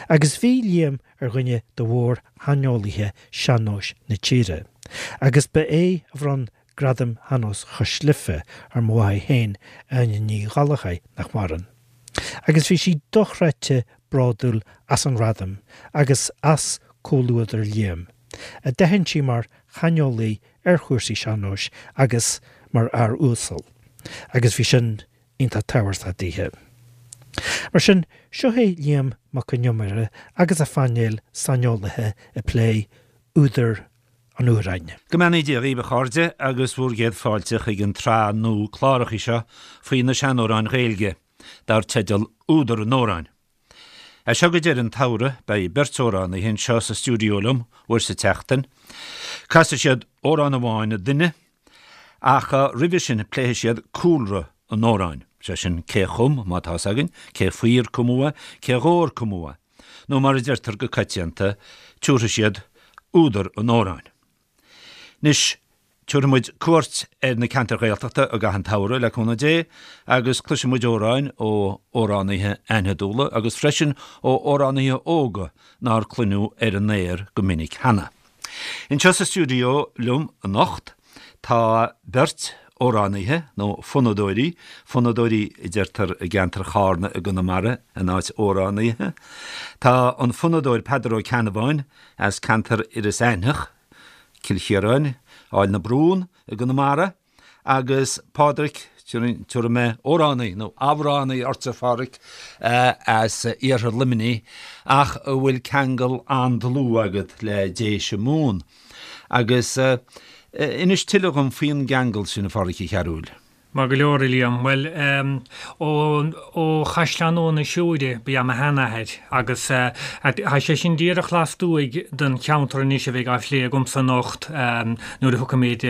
Agus bhí Liam ar dhuine de mhór-shaineolaithe sean-nóis na tíre, agus ba é a bhronn Gradam Shean-Nós Chois Life ar mo mháthair féin, Áine Ní Ghallchóir, nach maireann. Agus bhí sí dochreidte bródúil as an ngradam agus as comhluadar Liam, a d'aithin sí mar shaineolaí ar chúrsaí sean-nóis agus mar fhear uasal. Agus bhí sin iontach tábhachtach daoithe. Mar sin, seo é Liam Mac Con Iomaire agus a phainéal saineolaithe ag plé údar an amhráin. Go mbeannaí Dia dhaoibh a chairde agus bhur gcéad fáilte chuig an tsraith nua clárachaí seo faoi na seanamhráin Ghaeilge, dar teideal Údar an Amhráin. As seo go deireadh an tsamhraidh beidh beirt amhránaithe anseo sa stiúideo liom uair sa tseachtain. Casfaidh siad amhrán amháin an duine ach roimhe sin pléifidh siad cúlra an amhráin, sé sin cé chum, má tá 'fhios againn, cé faoi ar cumadh é, cé dhó ar cumadh é, nó mar a deirtear go coitianta, tabharfaidh siad údar an amhráin. Anois, tabharfaidh muid cuairt ar na ceantair Ghaeltachta i gcaitheamh an tsamhraidh, le cúnamh Dé, agus cloisfidh muid amhráin ó amhránaithe aithnidiúla agus freisin ó amhránaithe óga nár cluineadh ar an aer go minic cheana. Anseo sa stiúideo liom anocht tá beirt amhránaithe, nó fonnadóirí, fonnadóirí a deirtear i gceantar Chárna i gConamara in áit amhránaithe. Tá an fonnadóir Peadar Ó Ceannabháin as ceantar Iorras Aithneach, Cill Chiaráin, Aill na Brún i gConamara, agus Pádraic, tabharfaidh mé amhránaí nó amhránaí ortsa, a Phádraic, as iarthar Luimnigh, ach a bhfuil ceangal an-dlúth agat le Déise Mumhan. Agus inis tuilleadh dhom faoin gceangal sin, a Phádraic Uí Chearúil. Maith go leor, a Liam. Bhuel, ó, ó Chaisleán Nua na Siúire ba ea mo sheanathair agus tá sé sin díreach lastuaidh den cheantar anois a bheidh á phlé agamsa anocht nuair a thiocfaimid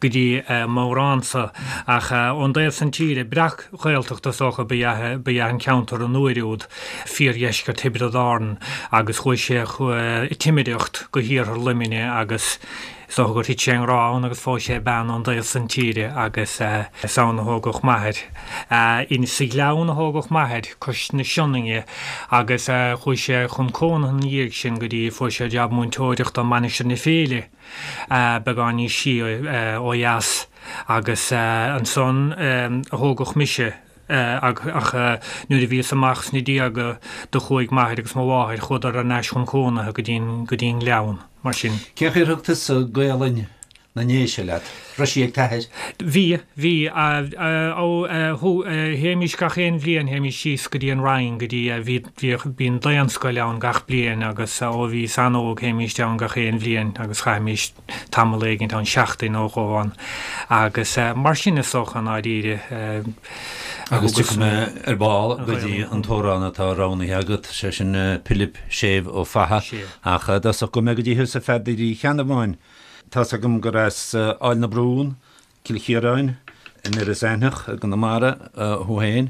go dtí m'amhránsa. Ach ón dtaobh san tíre, breac-Ghaeltacht is dócha ba ea, ba ea an ceantar an uair úd, fíordheisceart Thiobraid Árann agus chuaigh sé ag timireacht go hiarthar Luimnigh agus Is dócha gur thit sé i ngrá ann agus phós sé bean ón dtaobh san tíre agus is ann a thógadh m'athair. In sa Ghleann a thógadh m'athair, cois na Sionainne, agus chuaigh sé chun cónaithe ina dhiaidh sin go dtí fuair sé jab múinteoireachta i Mainistir na Féile, beagán níos sia ó dheas, agus ansan a thógadh mise. Ach nuair a bhíos amach sna déaga do chuaigh m'athair agus mo mháthair, chuadar thar n-ais chun cónaithe go dtí go dtí an Gleann, mar sin. Cén chaoi ar thug tusa Gaolainn na nDéise leat? Raibh sí ag t'athair? Bhí, bhí. Ó, théimís gach aon bhliain, théimís síos go dtí an Rinn, go dtí, bhí, bhíodh, bíonn daonscoil ann gach bliain agus ó bhíos an-óg théimíst ann gach aon bhliain agus chaithimís tamall éigint ann, seachtain nó dhó ann agus mar sin is dócha i ndáiríre. Agus tiocfaidh mé ar ball go dtí an t-amhrán atá roghnaithe agat, sé sin Pilib Séimh Ó Fatha, ach i dtosach gabhfaidh mé go dtí thusa a Pheadair Uí Cheannabháin. Tá's agam gur as Aill na Brún, Cill Chiaráin, in Iorras Aithneach i gConamara thú féin.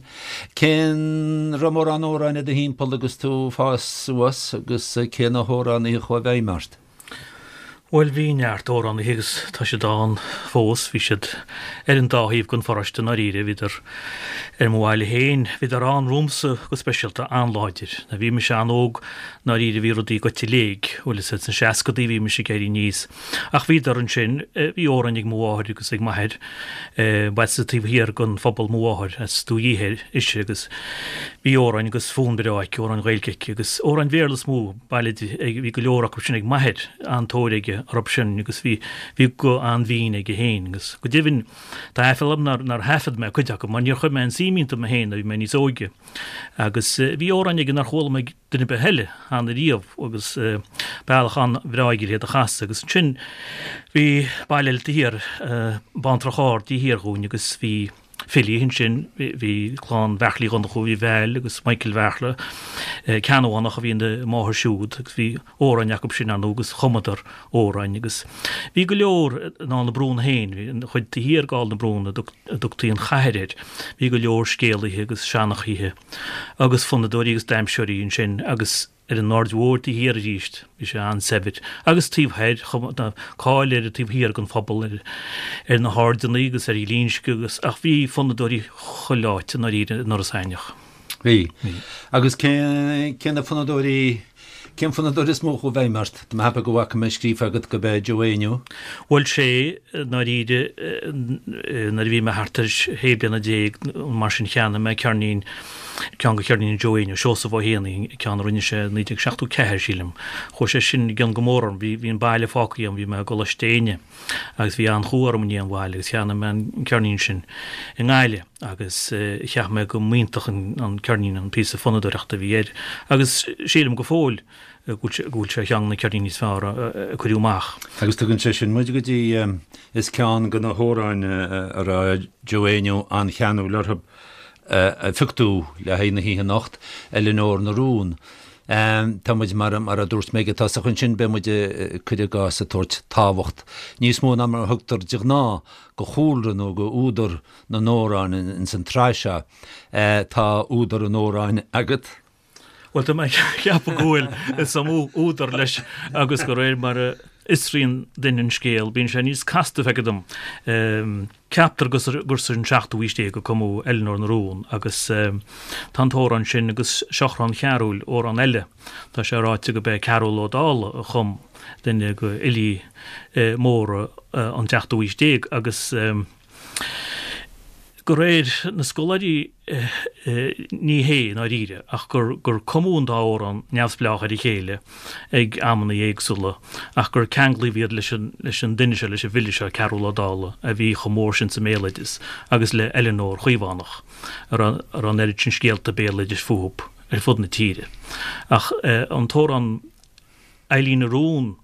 Cén raibh mórán amhráin i do thimpeall agus tú ag fás suas agus cé na hamhránaithe a chuaigh i bhfeidhm ort? Bhuel, bhí neart amhránaithe agus tá siad ann fós. Bhí siad ar an dá thaobh den pharóiste i ndáiríre. Bhíodar ar mo bhaile féin. Bhíodar ann romhamsa go speisialta, an-láidir. Nuair a bhí mise an-óg, i ndáiríre, bhí rudaí goite i léig. Bhuel, is sna seascadaí a bhí mise ag éirí aníos. Ach bhíodar ansin, bhí amhráin ag mo mháthair agus ag m'athair, ba as an taobh thiar den phobal mo mháthair, as Dumhaigh Uidhir ise agus bhí amhráin agus fonn breá aici, amhráin Ghaeilge aici agus amhráin Bhéarla is mó, baile di, bhí go leor acu sin ag m'athair, an-tóir aige orthu sin agus bhí, bhí guth an-bhinn aige féin agus go deimhin tá aiféala orm nár, nár thaifead mé cuid acu mar níor chuir mé aon suim iontu mé féin nuair a bhí mé níos óige agus bhí amhráin aige nár chuala mé ag duine ar bith eile cheana riamh agus bealach an-bhreá aige le hiad a chasadh agus ansin bhí baile eile taobh thiar, Baintreach Ard taobh thiar dhúinn agus bhí filí ansin, bhí clann Bheartlaí Dhonnchú, bhí Val agus Michael Bheartla, Ceannabhánach a bhí ina máthair siúd agus bhí amhráin acu sin ar ndóigh agus chumadar amhráin agus bhí go leor in Aill na Brún féin, bhí an chuid taobh thiar d'Aill na Brún a dtugtaí an chathair air, bhí go leor scéalaithe agus seanchaithe agus fonnadóirí agus damhsóirí ansin agus ar an Aird Mhóir taobh thiar arís, bhí sé an-saibhir agus taobh thoir, tá cáil ar an taobh thiar den phobal, ar ar na hAirdeanna agus ar Ghlinsce agus ach bhí fonnadóirí chuile áit i ndáiríre in Iorras Aithneach. Bhí. Agus cé, cé na fonnadóirí, cén fonnadóir is mó a chuaigh i bhfeidhm ort? Tá mé a cheapadh go bhfaca mé scríofa agat go b'é Joe Éinniú. Bhuel sé, i ndáiríre, nuair a bhí mé thart ar shé bliana déag nó mar sin cheannaigh mé ceirnín, ceann de cheirníní Joe Éinniú, Seosamh Ó hÉanaí, ceann a rinne sé i 1974, sílim. Chuaigh sé sin i gcion go mór orm. Bhí, bhí an baile fágtha agam, bhí mé i gColáiste Éinne. Agus bhí an-chumha orm i ndiaidh an bhaile agus cheannaigh mé an ceirnín sin i nGaillimh agus cheap mé go mb'iontach an ceirnín an píosa fonnadóireachta a bhí air agus sílim go fóill go bhfuil sé ar cheann de na ceirníní is fearr a cuireadh amach. Agus tugann sé sin muid go dtí, is ceann de na hamhráin a raibh Joe Éinniú an-cheanúil orthu a phioc tú le haghaidh na hoíche anocht, Eileanóir na Rún. Tá muid, mar a dúirt mé ag an tosach ansin, beidh muid, cuir i gcás, ag tabhairt tábhacht níos mó ná mar a thugtar de ghnáth go chúlra nó go údar na n-amhrán ins an tsraith seo. Tá údar an amhráin agat? Bhuel, tá mé ag ceapadh go bhfuil, is iomaí údar leis agus de réir mar a fhiosraíonn duine an scéal, bíonn sé níos casta, feictear dom. Ceaptar gur san seachtú haois déag a cumadh Eileanóir na Rún agus tá an t-amhrán sin agus Seachrán Chearúil, amhrán eile. Tá sé ráite gurb é Cearúll Ó Dálaigh a chum, duine de fhilí móra an tseachtú haois déag agus de réir na scoláirí Ní hé, i ndáiríre, ach gur gur cumadh an dá amhrán neamhspleách ar a chéile ag amanna éagsúla, ach gur ceanglaíodh iad leis an leis an duine seo, leis an bhfile seo, Cearúll Ó Dálaigh, a bhí chomh mór sin sa mbéaloideas, agus le Eileanóir Chaomhánach, a raibh a raibh an oiread sin scéalta béaloidis fúthu ar fud na tíre. Ach an t-amhrán. Eilín na Rún.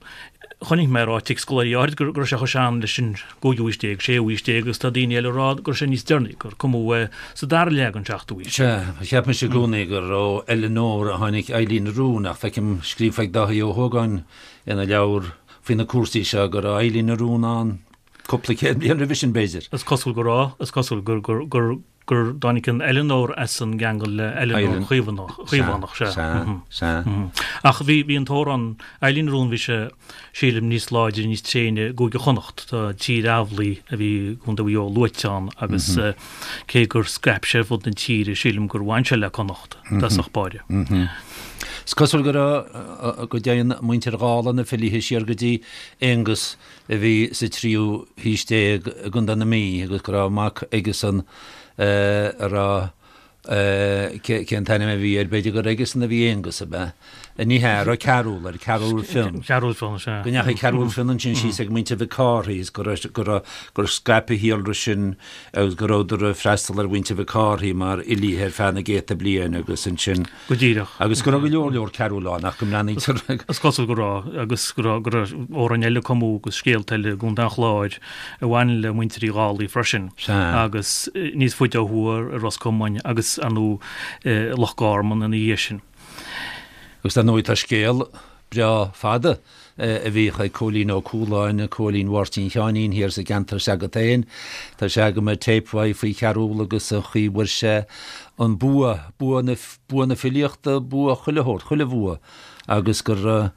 Chonaic mé ráite ag scoláirí áirid go raibh sé chomh sean leis an gcúigiú haois déag, séú haois déag agus tá daoine eile ag rá go raibh sé níos deireanaí, gur cumadh é sa dara leath den seachtú haois. Sea, cheap mise i gcónaí gur ó Eileanóir a tháinig Eilín na Rún ach feicim scríofa ag Dáithí Ó hÓgáin ina leabhar faoi na cúrsaí seo go raibh Eilín na Rún ann cúpla céad bliain roimhe sin, b'fhéidir. Is cosúil go raibh, is cosúil gur, gur, gur, gur dtáinig an Eileanóir as an gceangal le Eileanóir Chaomhánach, sea. Sea, sea. Ach bhí, bhí an t-amhrán Eilín na Rún, bhí sé, sílim, níos láidre, níos tréine i gCúige Chonnacht. Tá Tír Amhlaigh a bhí i gContae Mhaigh Eo luaite ann agus cé gur scaip sé ar fud na tíre, sílim gur bhain sé le Connacht i dtosach báire. Is cosúil go raibh, go dtéann muintir Dhálaigh na filithe siar go dtí Aonghus a bhí sa tríú haois déag i gContae na Mí agus go raibh mac aigesan a raibh, cén t-ainm a bhí air, b'fhéidir gur aigesan a bhí Aonghus, ab ea? Ní hea, a raibh Cearúll air, Cearúll Fionn. Cearúll Fionn, sea. Go ndeachaigh Cearúll Fionn ansin síos ag muintir Mhic Cárthaigh is go raibh, go raibh, gur scaip a shíolra sin agus go rabhadar ag freastal ar mhuintir Mhic Cárthaigh mar fhilíthe ar feadh na gcéadta bliain agus ansin, Go díreach. Agus go raibh go leor leor Cearúll ann ach go mbreathnaítear. Is cosúil go raibh, agus go raibh, go raibh amhráin eile cumadh agus scéalta eile i gContae an Chláir a bhain le muintir Uí Dhálaigh freisin. Sea. Agus níos faide ó thuaidh i Ros Comáin agus, ar ndóigh, i Loch Garman ina dhiaidh sin. Agus dar ndóigh tá scéal breá fada a bhíodh ag Cóilín Ó Cualáin, Cóilín Mháirtín Sheáinín thiar sa gceantar s'agat féin. Tá sé agam ar téip uaidh faoi Chearúll agus an chaoi bhfuair sé an bua, bua na, bua na filíochta, bua chuile shórt, chuile bhua agus gur,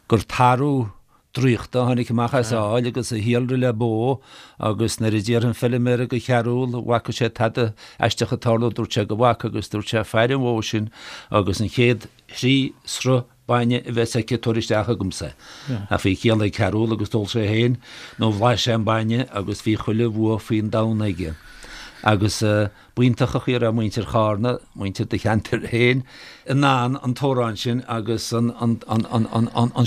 gur tarbh draíochta a tháinig amach as a fheoil agus a shíolraigh le bó agus nuair a d'iarr an feilméara go Chearúll an bhfaca sé tada aisteach ag tarlú dúirt sé go bhfaca agus dúirt sé faire an bhó sin agus an chéad thrí sruth bainne a bheas aici tabhair isteach chugamsa. Ach bhí ciall ag Cearúll agus d'ól sé féin nó bhlais sé an bainne agus bhí chuile bhua faoin domhan aige. Agus b'iontach an chaoi a raibh muintir Chárna, muintir do cheantair féin, in ann an t-amhrán sin agus an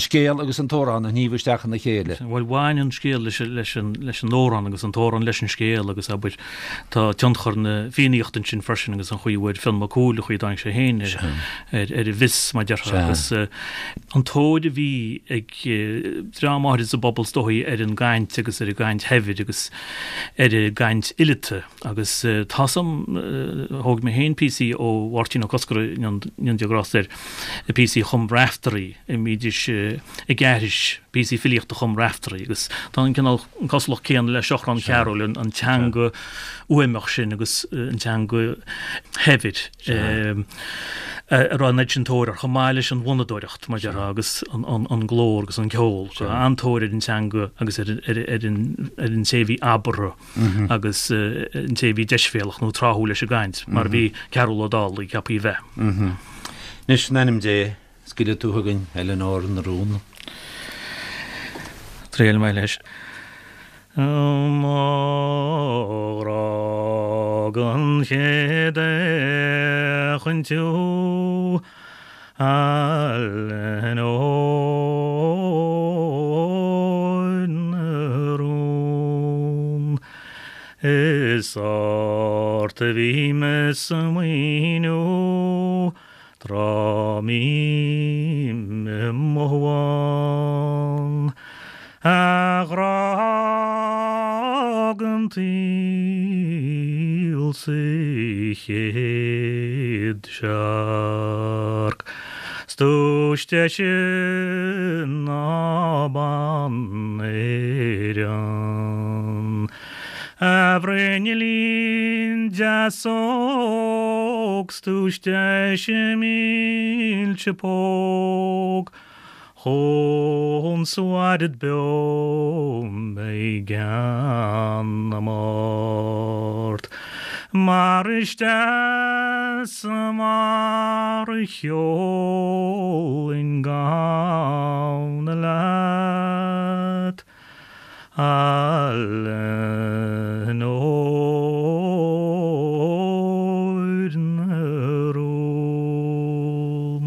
scéal agus an t-amhrán a shníomh isteach ina chéile. Bhuel, bhain an scéal leis an amhrán agus an t-amhrán leis an scéal agus, abair, tá tionchar na Fiannaíochta ansin freisin agus an chaoi a bhfuair Fionn Mac Cumhaill, an chaoi a dtáinig sé féin ar ar an bhfios, mar a déarfá, agus an tóir a bhí ag dream áirid sa bpobal is dóichí ar an gcaint agus ar an gcaint shaibhir agus ar an gcaint fhileata agus tá 's a'm, thóg mé féin píosaí ó Mháirtín Ó Cosgordha, go ndéana Dia grásta air, píosaí a chum Raiftearaí, a mbídís ag aithris. Píosaí filíochta a chum Raiftearaí agus tá an cineál cosúlacht céanna le Seachrán Chearúil, an teanga uaimneach sin agus an teanga shaibhir a raibh an oiread sin tóir air, chomh maith leis an bhfonnadóireacht, mar a déarfá, agus an glór agus an ceol. An-tóir ar an teanga agus ar an té a bhí abartha agus an té a bhí deisbhéalach nó tráthúil leis an gcaint, mar a bhí Cearbhall Ó Dálaigh ceaptha a bheith. Anois, in ainm Dé, Scaoilfidh tú chugainn Eileanóir na Rún. Triailfidh mé leis. Mo ghrá don chéad fhéachaint thú, a Eileanóir na Rún. Is ort a bhím ag smaoineamh Tráth mbím i mo shuan, a ghrá den tsaol sa chéad searc, 's duais deise ná bean Éireann. A bhruinnillín deas óg 's duais deise mílse póg, Chúns a mhairid beo mé i gceann na mbord. Mar is deas mar a cheolainn gamhna leat. A Eileanóir na Rún.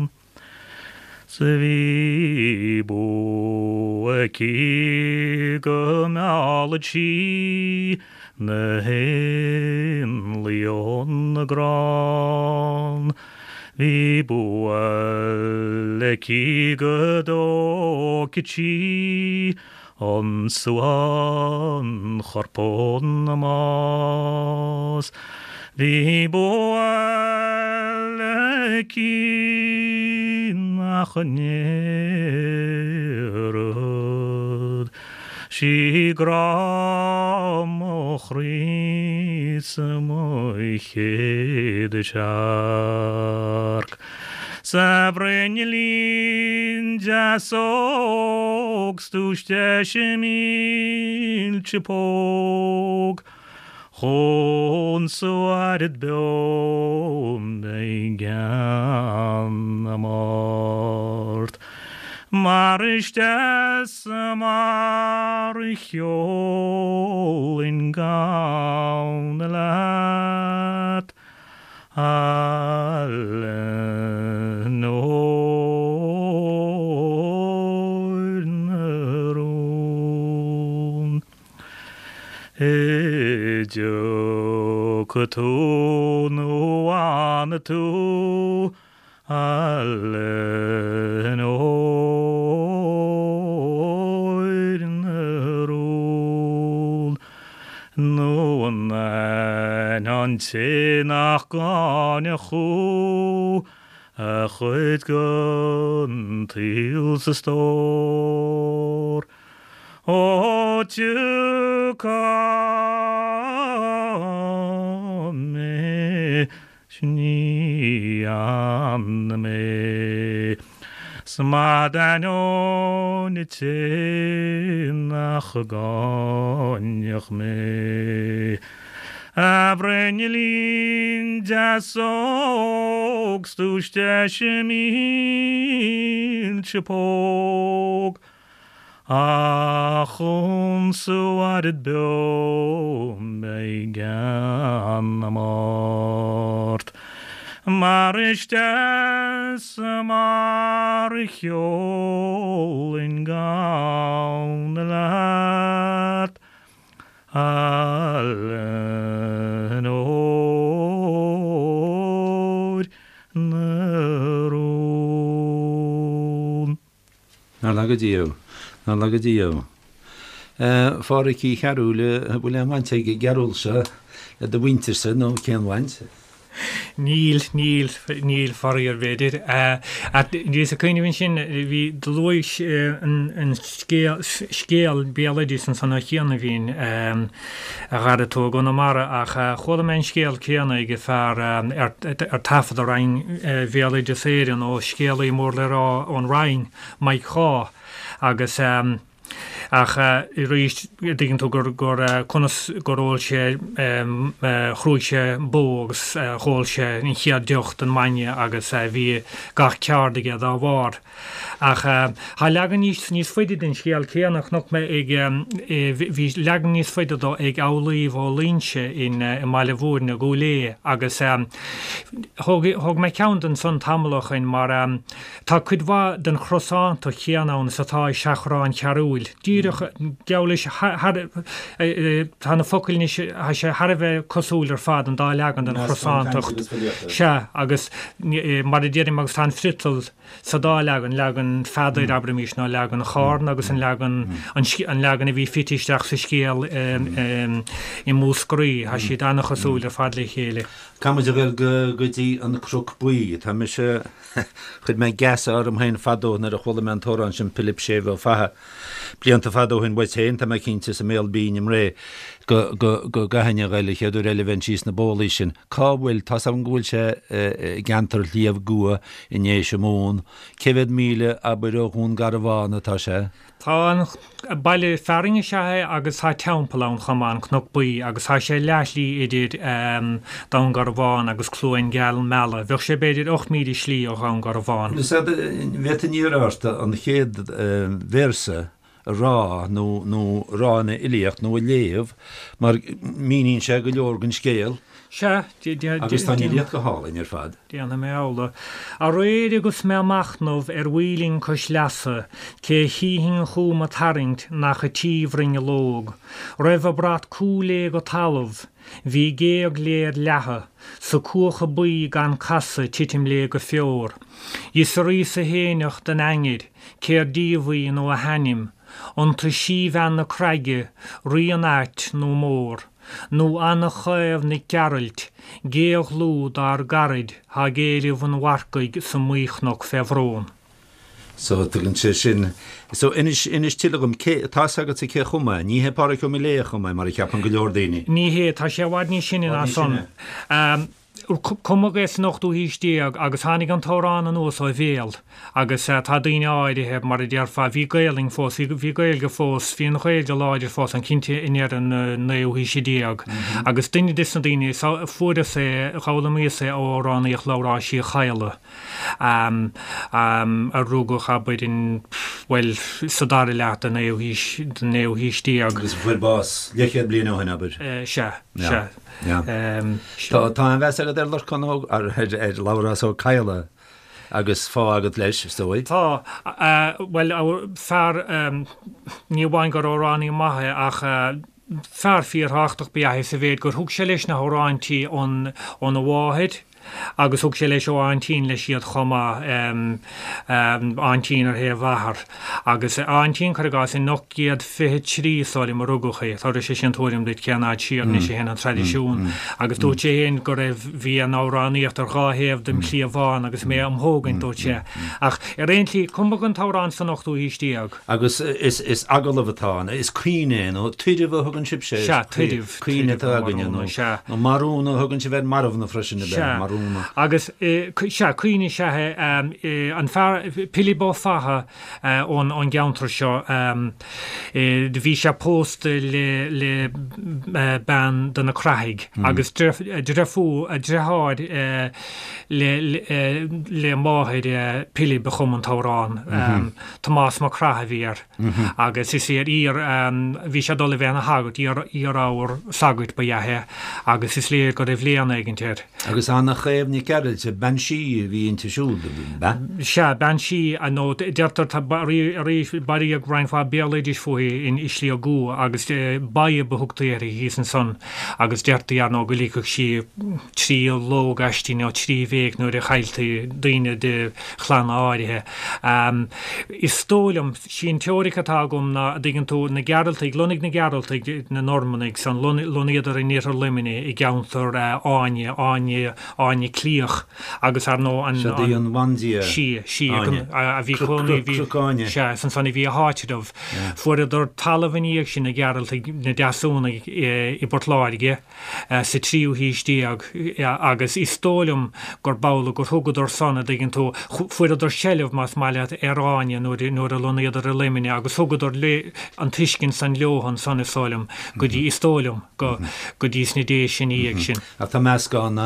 'S bhí bua aici go meallfadh sí na héanlaith ón gcrann. Bhí bua aici go dtógfadh sí An suanchorp ón mbás. Bhí bua aici nach ndéarfadh sí grá mo chroí 's mo chéad searc. 'S a bhruinnillín deas óg 's duais deise mílse póg, Chúns a mhairid beo mé i gceann na mbord. Mar is deas mar a cheolainn gamhna leat, A Eileanóir na Rún. I dtiocfaidh tú nó fhanfaidh tú, A Eileanóir na Rún. Nó an aithneann an té nach gcáinfeadh thú a chuid den tsaol 's a stór? Ó tiocfaidh mé 's ní fhanfaidh mé 's má d'ainneoin an té nach gcáinfeadh mé. A bhruinnillín deas óg 's duais deise mílse póg, Ach chúns a mhairid beo mé i gceann na mbord. Mar is deas mar a cheolainn gamhna leat, A Eileanóir na Rún. Nár laga Dia thú. Nár laga Dia thú. A Phádhraic Uí Chearúil, an bhfuil aon bhaint ag an gCearúl seo le do mhuintirse nó cén bhaint? Níl, níl, níl, faraor, b'fhéidir. Bhíos ag cuimhneamh ansin, bhí, do luais an scéal, scéal béaloidis ansan ó chianaibh, a Dhara, tú i gConamara ach chuala mé an scéal céanna ag fear ar taifead i Roinn Bhéaloideas Éireann ó scéalaí mór le rá ón Rinn, Mike Shaw, agus. Ach arís, dtuigeann tú gur, gur, conas gur ól sé, chrúigh sé bó agus dh'ól sé an chéad deoch den mbainne agus bhí gach ceárd aige dá bharr. Ach tá leagan níos, níos faide den scéal céanna, chonaic mé ag, bhí leagan níos faide dó ag Amhlaoibh Ó Loingsigh in, i mBaile Mhúirne, Gúil Aodha agus thóg, thóg mé ceann de ansan tamall ó shoin mar, Tá cuid mhaith den chrosántacht chéanna ann is atá i Seachrán Chearúil. Díreach, geall leis, thar, tá na focail anois, tá sé thar a bheith cosúil ar fad, an dá leagan den chrosántacht. Sea, agus mar a deirim, agus tá an friotal sa dá leagan, leagan Pheadair, abraimis, nó leagan Chárna agus an leagan, an leagan a bhí fite isteach sa scéal i Múscraí, tá siad an-chosúil ar fad le chéile. Caithfidh muid a ghoil go dtí an Cnoc Buí. Tá mise. Chuir mé geasa orm féin fadó nuair a chuala mé an t-amhrán sin Pilib Séimh Ó Fatha. Blianta fada ó shin uait féin, tá mé cinnte, is i mBéal Binn i mBré, go, go, go gcaithfinn a ghoil an chéad uair eile a bheinn síos na bólaí sin. Cá bhfuil, tá's agam go bhfuil sé i gceantar Shliabh gCua i nDéise Mumhan. Cé mhéad míle, abair, ó Dhún Garbhán atá sé? Tá an baile fearainn is ea é agus tá teampall ann chomh maith, an Cnoc Buí, agus tá sé leathshlí idir Dún Garbhán agus Cluain Geal Meala. Bheadh sé b'fhéidir 8 míle slí ó Dhún Garbhán. Bhféadfainn iarraidh ort an chéad véarsa a rá nó nó a rá ina fhilíocht nó a léamh mar míníonn sé go leor den scéal. Sea, Agus tá an fhilíocht go hálainn ar fad. Déanfaidh mé amhlaidh. Aréir agus mé a' machnamh ar mhaoilinn cois leasa, cé chífinn chugam a' tarraingt nach a tí bhruinneallóg. Raibh a brat cúil léi go talamh. Bhí géag léi ar leathadh, 's a cuacha buí gan casadh titim léi go feor. D'fhiosraíos-sa fhéineach den ainnir, cér díobh í nó a hainm. An tú síbhean na craige, rí an ait nó mór. Nó Anna Chaomh Nic Gearailt, géagdhlúth dár gcaraid thá ag éileamh an mharcaigh sa mBuíchnoc fé bhrón. So, tugann sé sin. So, inis, inis tuilleadh dhom, cé, tá's agatsa cé chum é? Ní hé Pádraig Ó Miléadha a chum é, mar a cheapann go leor daoine. Ní hé, tá sé i bhfad níos sine ná san. Cumadh é san ochtú haois déag agus tháinig an t-amhrán anuas ó bhéal agus tá daoine áirithe, mar a déarfá, bhí Gaelainn fós, bhí, bhí Gaeilge fós, bhí an Ghaeilge láidir fós ann cinnte i ndeireadh an naoú haoise déag agus duine des na daoine, fuaireas é, dh'fhoghlaimíos é ó amhránaíocht Labhráis Uí Chadhla a rugadh, abair, in, bhuel, sa dara leath den naoú haois, den naoú haois déag. Agus a fuair bás leathchéad bliain ó shin, abair. Sea, sea. Tá an-mheas agat ar Lorcán Ó, ar Labhrás Ó Cadhla agus fáth agat leis, is dóigh. Tá. Bhuel, fear, ní amháin gur amhránaí maith é ach fear fíorthábhachtach ba ea é sa mhéid gur thug sé leis na hamhráintí óna mháthair, Agus thug sé leis ó aintín leis iad chomh maith, aintín ar thaobh athar. Agus a aintín, cuir i gcás, in 1823 is dóigh liom a rugadh í, tabharfaidh sé sin tuairim duit cén fhad siar anois a théann an traidisiún. Agus dúirt sé féin go raibh, bhí an amhránaíocht ar dhá thaobh dem chliabhán agus mé am thógaint, dúirt sé. Ach ar aon tslí, cumadh an t-amhrán san ochtú haois déag. Agus is agallamh atá ann, is caoineadh é, nó tuireamh a thugann sibhse air. Sea, tuireamh. Caoineadh atá againne, nó marúna a thugann sibh ar marbhna freisin, ab ea? Marúna. Sea, agus, sea, caoineadh is ea é. An fear, Pilib Ó Fatha ón gceantar seo, bhí sé pósta le bean de na Crathaigh agus deirfiúr, deartháir le máthair Pilib a chum an t-amhrán. Tomás Mac Craith a bhí air agus is iar, bhí sé ag dul a bheith ina shagart, iar-ábhar sagairt ba ea é agus is léir go raibh léann éigint air. Agus an-. Chaomh Nic Gearailt, bean sí a bhí inti siúd, ab ea? Sea, bean sí, nó deirtear, tá arís, bailíodh roinnt mhaith béaloidis fúithi in i Sliabh gCua agus Badhb a thugtaí uirthi thíos ansan agus deirtí, ar ndóigh, go ligfeadh sí 3 lóg aisti nó 3 bhéic nuair a chailltí daoine de chlanna áirithe. Is dóigh liom, sí an teoiric atá agam ná, a dtuigeann tú, na Gearaltaigh, lonnaigh na Gearaltaigh, na Normannaigh san, lonnaíodar in iarthar Luimnigh i gceantar Áine, Áine, Áine Cliach agus ar ndóigh an, Siod í an bhandia Sí, sí, Áine. a bhí cónaí, bhí, Cnoc Áine. sea, is ansan a bhí a háitreabh. Fuaireadar talamh ina dhiaidh sin, na Gearaltaigh, na Deasúnaigh i bPort Láirge. sa tríú haois déag agus is dóigh liom gurb amhlaidh gur thugadar san, a dtuigeann tú, fuaireadar seilbh, más maith leat, ar Áine nuair nuair a lonnaíodar i Luimneach agus thugadar an tuiscint san leo ansan, is dóigh liom, go dtí, is dóigh liom, go go dtí sna Déise ina dhiaidh sin. Ach tá meascán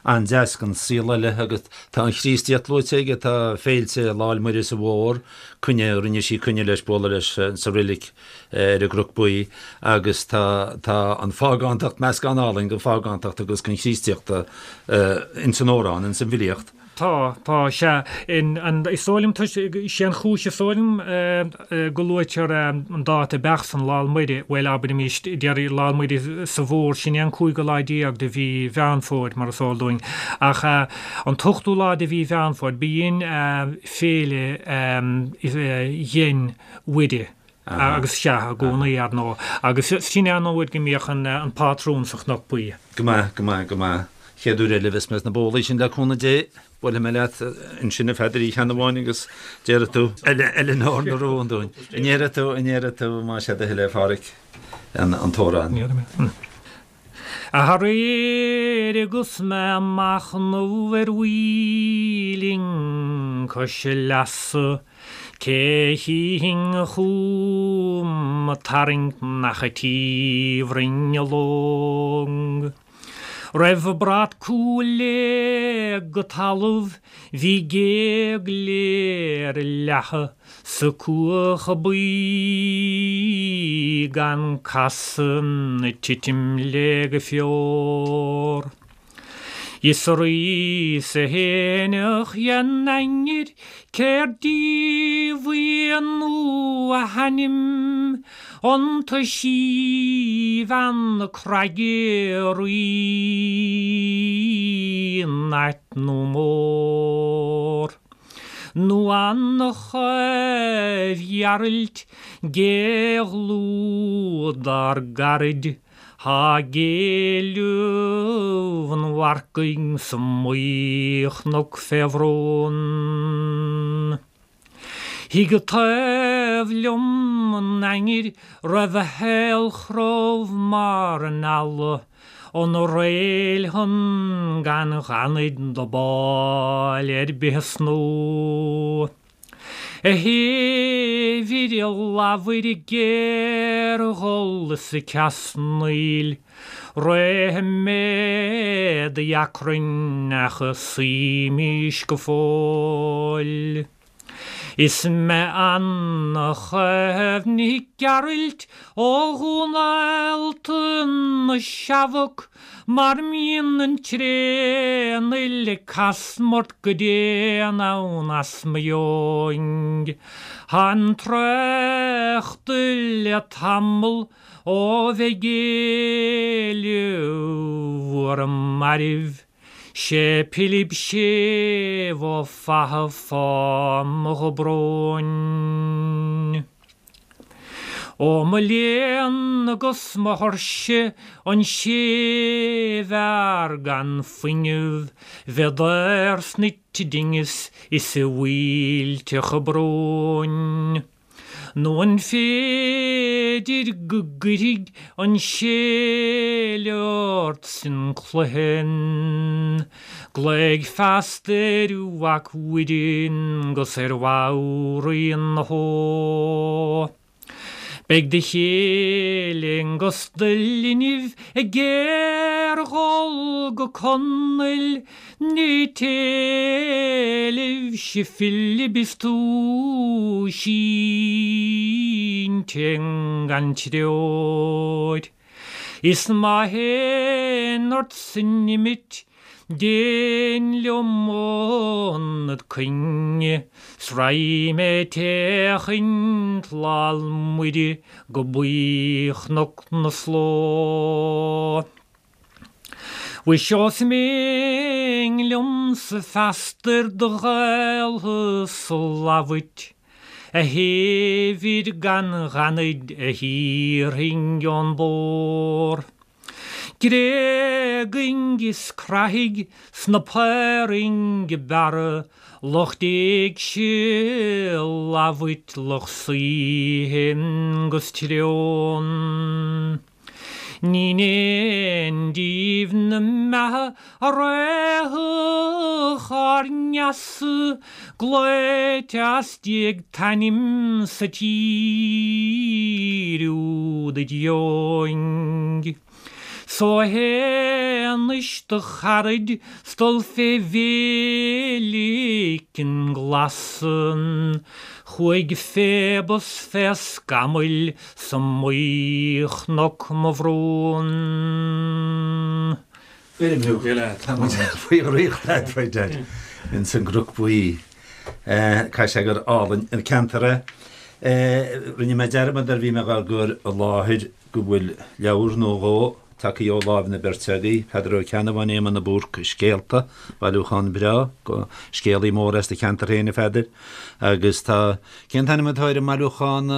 an-deas den saol eile agus tá an Chríostaíocht luaite aige, tá féilte Lá 'le Muire sa Mhór, coinne, rinne sí coinne leis bualadh leis sa roilig, ar an gCnoc Buí agus tá tá an phágántacht, meascán álainn den phágántacht agus den Chríostaíocht ins an amhrán, ins an bhfilíocht. Tá, tá, sea. In, an, is dóigh liom toisc, sé an chúis is dóigh liom go luaitear an dáta beacht san, Lá 'le Muire, bhuel abraimis, déarfaí Lá 'le Muire sa Mhór, sin é an cúigiú lá déag de mhí Mheán Fómhair, mar is eol dúinn. Ach an t-ochtú lá de mhí Mheán Fómhair, b'in féile Dhein Mhuire. Agus sea, i gcónaí, ar ndóigh. Agus sin é an uair go mbíodh an pátrún sa Chnoc Buí. Go maith, go maith, go maith. Chéad uair eile a bheas mé sna bólaí sin le cúnamh Dé, buailfidh mé leat ansin a Pheadair oíche amháin agus déarfaidh tú Eileanóir na Rún dúinn. An ndéarfaidh tú, an ndéarfaidh tú, más é do thoil é, a Pháraic, an t-amhrán. Déarfaidh mé. Aréir agus mé ag machnamh ar mhuileann cois leasa, cé chífinn chugam ag tarraingt nach an tí bhroinn a long. Roimh brat cúil léig go talamh bhí géag léir leatha Sa cuach buí gan casadh ag titim léi go fior. Is arís a fhéineach dhen ainnir céard díobh í nó a hainm an t-síbhean na craige rí nait nó mór. Nó an Chaoimh Ghearailt gé dhlúth dár gcaraid thá ag éileamh an mharcaigh sa mBuí-Chnoc fé bhrón. Thig taobh liom an ainnir raibh a haolchrobh mar an eala An réil shon gan ghanaid do báil ar bith a snó. A thaobh ir a ladhar ag géarghol is ag ceasnaíl, Réidh mé d'achrainn ach suímís go fóill. Is mé Anna Chaomh Nic Gearailt ó Dhún Allta na Seabhac mar mbíonn an tréan-fhuil ag casmairt go dian ann as mo dheoin. Thá'n trácht le tamall ó bheith ag éileamh bhur mairbh. Sé Pilib Séimh Ó Fatha fáth mo dhobróin. Ó mo léan agus mo thuirse an séimhfhear gan fuinneamh bheith daor sna dingeas is i bhfuilteacha bróin. Nó an féidir go gcuirfidh an séile ort san cluiche? Glaoigh feasta ar Mhac Mhuireann 'gus ar Mhairín na hÓ. Beidh do chéile 'gus do linbh ag géarghol go Conaill Ní t-éileamh si Philib is tú sínte gan treoir. Is má théann ort san imit. Dein liom ionad coinne 's raghaidh mé ag féachaint Lal Muire go Buí-Chnoc na Sló. Mhuise ós mian liomsa feasta ar do ghaoltha 's a lamhait, a shéimhir gan ghanaid a thiarfainn ón bpór. Gréagainn is crathaigh sna paorainn bearra lucht éigse lamhait lucht saoithe 'gus treon. Ní in aon díobh na mbeatha a raghadh ár ngeasa glaoite as déag t-ainm sa tír úd id dheoin. 'S ó théanais do charaid 's dul fé mhéilicin ghlasan chuaigh Phoebus fé scamaill 's i mBuí-Chnoc mo bhrón. Bheirim thú. Tá muid faoi dhraíocht a'd, right Dad. Ins an gCnoc Buí. Caithfidh sé gur álainn an ceantar é. Rinne mé dearmad nuair a bhí mé dhá gcur i láthair go bhfuil leabhar nó dhó tagtha ó láimh na beirte agaibh, Peadar Ó Ceannabháin, Éamonn de Búrca, Scéalta, bailiúchán breá, scéalaí mór as do cheantar féin, a Pheadair, agus tá, cén t-ainm atá ar an mbailiúchán,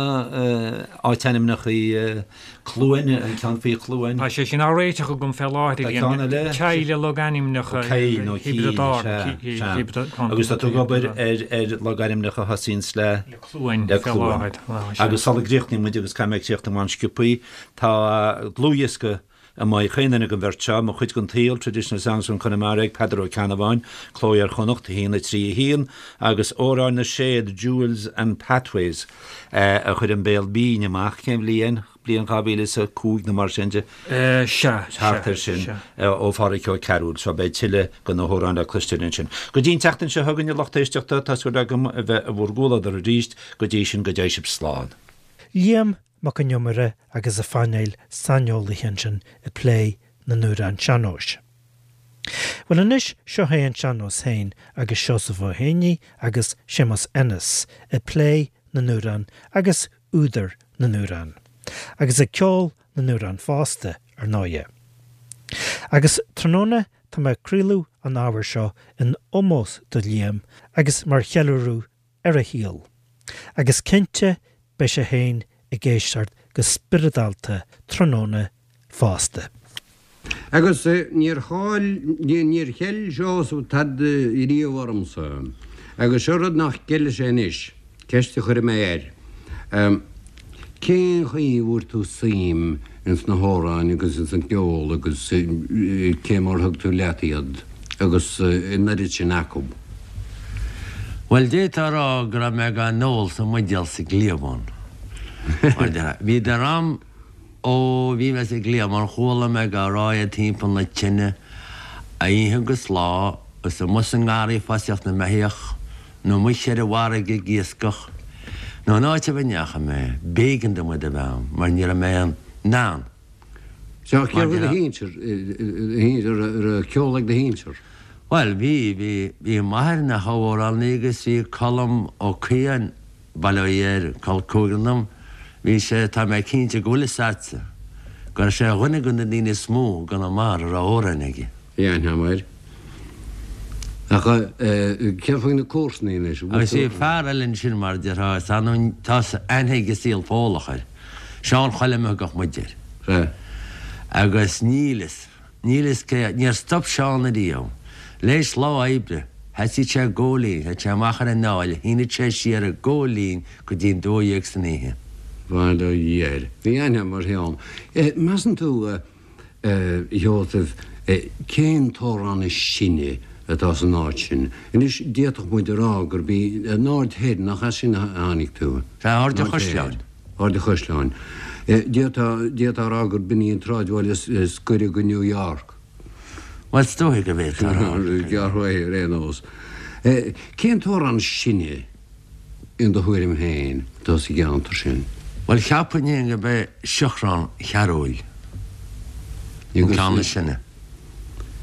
áitainmneacha Cluain, an ceann faoi Chluain? Tá sé sin á réiteach agam fé láthair, Tá ceann eile? Ceil logainmneacha Caill nó Cíll, sea, sea. Agus tá tú ag obair ar logainmneacha a thosaíonns le? Le Cluain fé láthair. Agus sula gcríochnaíonn muid, agus caithfidh mé críochnú an-sciobthaí, Tá dlúthdhiosca amuigh ag chaon duine den bheirt seo, Mo Chuid den tSaol, Traditional Songs from Connemara ag Peadar Ó Ceannabháin, Cló Iar-Chonnacht, 1, 3, 1, agus Amhráin na Séad, Jewels and Pathways, a chuir An Béal Binn amach, cén bhliain? Bliain 2005 nó mar sin de? Sea, sea, Thart air sin, ó Phádhraic Ó Cearúil. So beidh tuilleadh de na hamhráin le cloisteáil ansin. Go dtí an tseachtain seo chugainn, a lucht éisteachta, tá súil agam a bheith i bhur gcomhluadar arís. Go dtí sin, go dté sibh slán. Liam Mac Con Iomaire agus a phainéal saineolaithe ansin ag plé na n-amhrán sean-nóis. Bhuel anois, seo é an sean-nós féin agus Seosamh Ó Héanaí agus Séamus Ennis ag plé na n-amhrán agus údair na n-amhrán. Agus ag ceol na n-amhrán fosta, ar ndóighe. Agus tráthnóna tá mé ag craoladh an ábhair seo in ómós do Liam agus mar cheiliúradh ar a shaol. Agus cinnte beidh sé féin ag éisteacht go spioradálta tráthnóna fosta. Agus níor chaill, níor cheil Seosamh tada riamh ormsa. Agus seo rud nach gceilfidh sé anois, ceist a chuirfidh mé air. Cén chaoi a bhfuair tú suim ins na hamhráin agus ins an gceol agus cé mar thug tú leat iad agus an oiread sin acu? Bhuel, d'fhéadfá a rá go raibh mé dhá n-ól sa mbuidéal sa gcliabhán. Mar déarfá. Bhíodar a'm ó bhí mé sa gcliabhán, chuala mé dhá rá iad timpeall na tine oíche agus lá agus amuigh sa ngarraí ag fosaíocht na mbeithíoch. nó amuigh ar an bhfarraige ag iascach, nó in áit ar bith a ndeachaigh mé, b'éigean dom iad a bheith a'm, mar ní raibh mé in ann. Sea, céard faoi do shinsir, an raibh ceol ag do shinsir? Bhuel, bhí, bhí, bhí m'athair ina thabhamhránaí agus bhí Colm Ó Caodháin, bail ó Dhia air, col cúigear dom, bhí sé, tá mé cinnte go bhfuil fhios a'dsa, go raibh sé ar dhuine de na daoine is mó i gConamara a raibh amhráin aige. Bhí aithne agam air. Ach céard faoi na comharsanaí anois? Agus bhí fear eile ansin mar a déarfá, is annamh, tá aithne ag an saol Fódhlach air, Seán Choilm a thugadh muid air. Sea. Agus níl fhios, níl fhios cé, níor stop Seán ariamh. L'éis lá oibre, sheasaíodh sé ag gabháil fhoinn, théadh sé amach ar an aill, shíneadh sé siar ag gabháil fhoinn go dtí an 12 san oíche. Bail ó Dhia air. Bhí aithne agam ar Sheán. Measann tú, A Sheosaimh, cén t-amhrán is sine atá san áit sin? Anois, d'fhéadfadh muid a rá gurb í an Aird Thoir, nach as sin a tháinig tú? Sea, Aird an Chaisleáin. Aird an Chaisleáin. D'fhéadfá a rá gurb in í an tsráidbhaile is gaire go New York. Bhuel, is dóiche go bhféadfá a rá. Gearr uaidh, ar aon nós. Cén t-amhrán is sine in do thuairim féin, atá sa gceantar sin? Bhuel, cheapfainn féin gurb é Siochrán Chearúil an ceann is sine.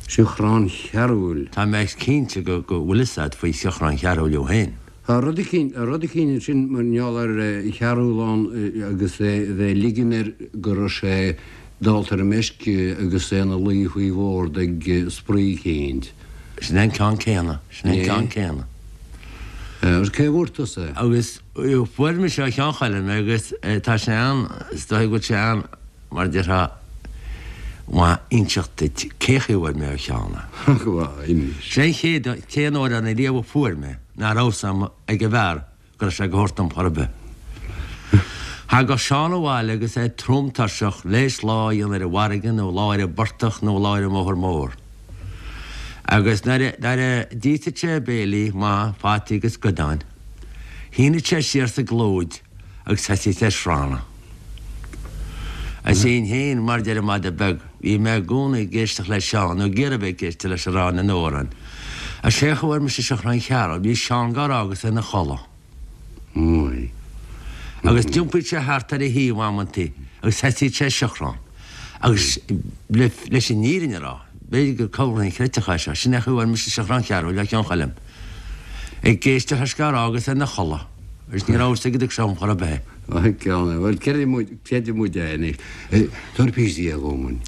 Siochrán Chearúil. Tá mé cinnte go bhfuil fhios a'd faoi Siochrán Chearúil thú féin. Tá rud eicínt, rud eicínt ansin mar gheall ar Chearúil ann agus é a bheith ag ligean air go raibh sé dálta ar an meisce agus é ina luí faoi bhord ag spraoi eicínt. Sin é an ceann céanna, sin é an ceann céanna. Agus cé a bhfuair tusa é? Agus fuair mise ó Sheán Choilm é agus tá sé an, is dóigh go bhfuil sé an, mar a déarfá, maith inseacht duit cé chaoi a bhfuair mé ó Sheán é. Inis. Sé an chéad, t-aon amhrán ariamh a fuair mé ná raibh fhios ag an bhfear go raibh sé go thabhairt dom chor ar bith. Thagadh Seán abhaile agus é trom tuirseach, léis lá a dhéanamh ar an bhfarraige nó lá ar an bportach nó lá ar an mbóthar mór. Agus nuair a d'íosfadh sé a bhéilí maith fataí agus goideáin, shíneadh sé siar sa gclúid agus thosaíodh sé ag srannadh. Is é féin, mar deir an madadh beag, bhí mé i gcónaí ag éisteacht le Seán, nó ag iarraidh a bheith ag éisteacht leis ag rá na n-amhrán. Is é a fuair mise Siochrán Chearúil, bhí Seán gá rá agus é ina chodladh. Agus d'iompaíodh sé thart ar a thaobh amantaí agus thosaíodh sé ag siochrán. Agus leis an fhírinne a rá, b'fhéidir gur corr inchreidteach é seo, sin é an chaoi a bhfuair mise Siochrán Chearúil ó Sheán Choilm. Ag éisteacht leis gá rá agus é ina chodladh. Agus ní raibh fhios aige go dtug sé dhom chor ar bith é. Bhuel, creidfidh muid é anois. Tabhair píosa dhe dhom.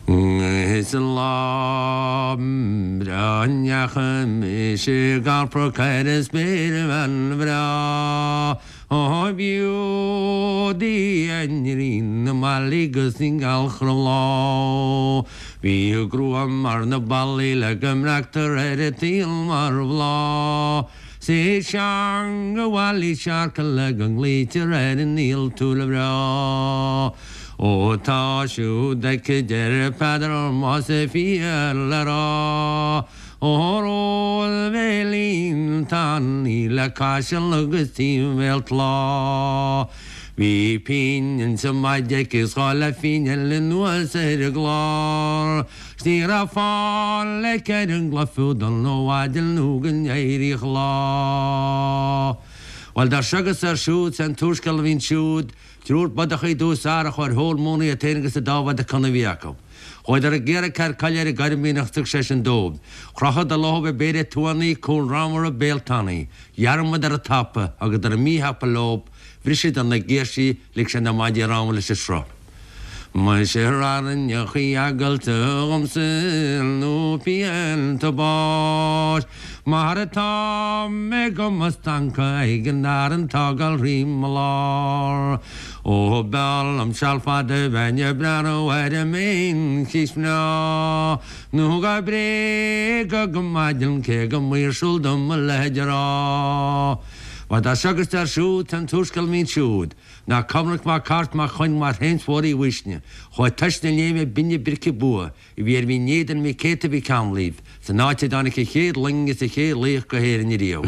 Is an lá breá a ndeachaigh mise ag alpadh ar an spéirbhean bhreá, ó b'shiúd í a ngrian na mballaí 'gus an ghealach ar an bhláth. Bhí a grua mar na ballaí le go mbreactar ar an tsaol mar bhláth. 'S í teanga bhaile searca le go nglaoitear ar an ialtúr bhreá. Ó tá siúd aici deir Peadar más fíor le rá. Ó róbhéilín tanaí le caiseal agus timhéal tláth. Bhí pingin sa maide aici 's dhá leathphingin eile anuas ar an gclár. 'S ní raibh fáil aici ar an gcloich fiúdal nó mhaidin nó go n-éiríodh lá. Bhuel, dar seo agus dar siúd, 's é an t-úrscéal a bhí ansiúd, Triúr bodach i dtús ara a chuaigh ar thóir móna iad féin agus an dá mhadadh cona a bhí acu. Chuadar ag iarraidh cead coille ar an gCoirmín ach thug seisean dóibh. Chrochadar leothab ag péire tuannaí, cúl ramhar béal tanaí. Dhearmadar an tapa agus nuair a bhí míthapa leob, bhriseadar na girsí, lig sé na maidí ramhar leis an sruth. Muise airneachaí eagailte dhomsa nó pianta báis Mar atá mé go mo stancadh ag an arann tá ag dul thrí mo lár Ó b'fhearr liom seal fada bheinn ag breathnú ar an mBean mhná Nó go bréagadh go maidin cé go maoirsiúil dom a leithéid a rá Bhuel dar seo agus dar siúd tá an t-úrscéal a bhí ansiúd Ná Cormac Mac Airt Mac Choinn Mac Shéamuis Mhóir Uí Uisne, chuaigh tois na léime binne brice bua a bhí ar Mhín Éadain Mhic Céta Mhic Amhlaoibh san áit a dtáinig an chéad loing is an chéad laoch go hÉirinn ariamh.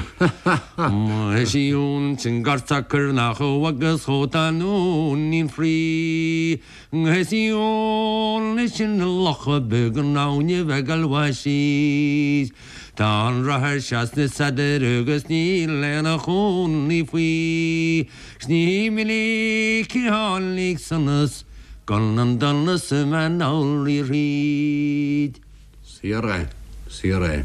Eisiúint an gort socair nach agus chomh tá nóinín fraoigh Eisiúint sin na locha beag an abhainn bheag almhaith síos. Tá an rothar seo sna sadair agus níl aon chónaí faoi. 'S ní minic a tháinig sonas gan an donas a bheith anall thríd. Saor é, saor é.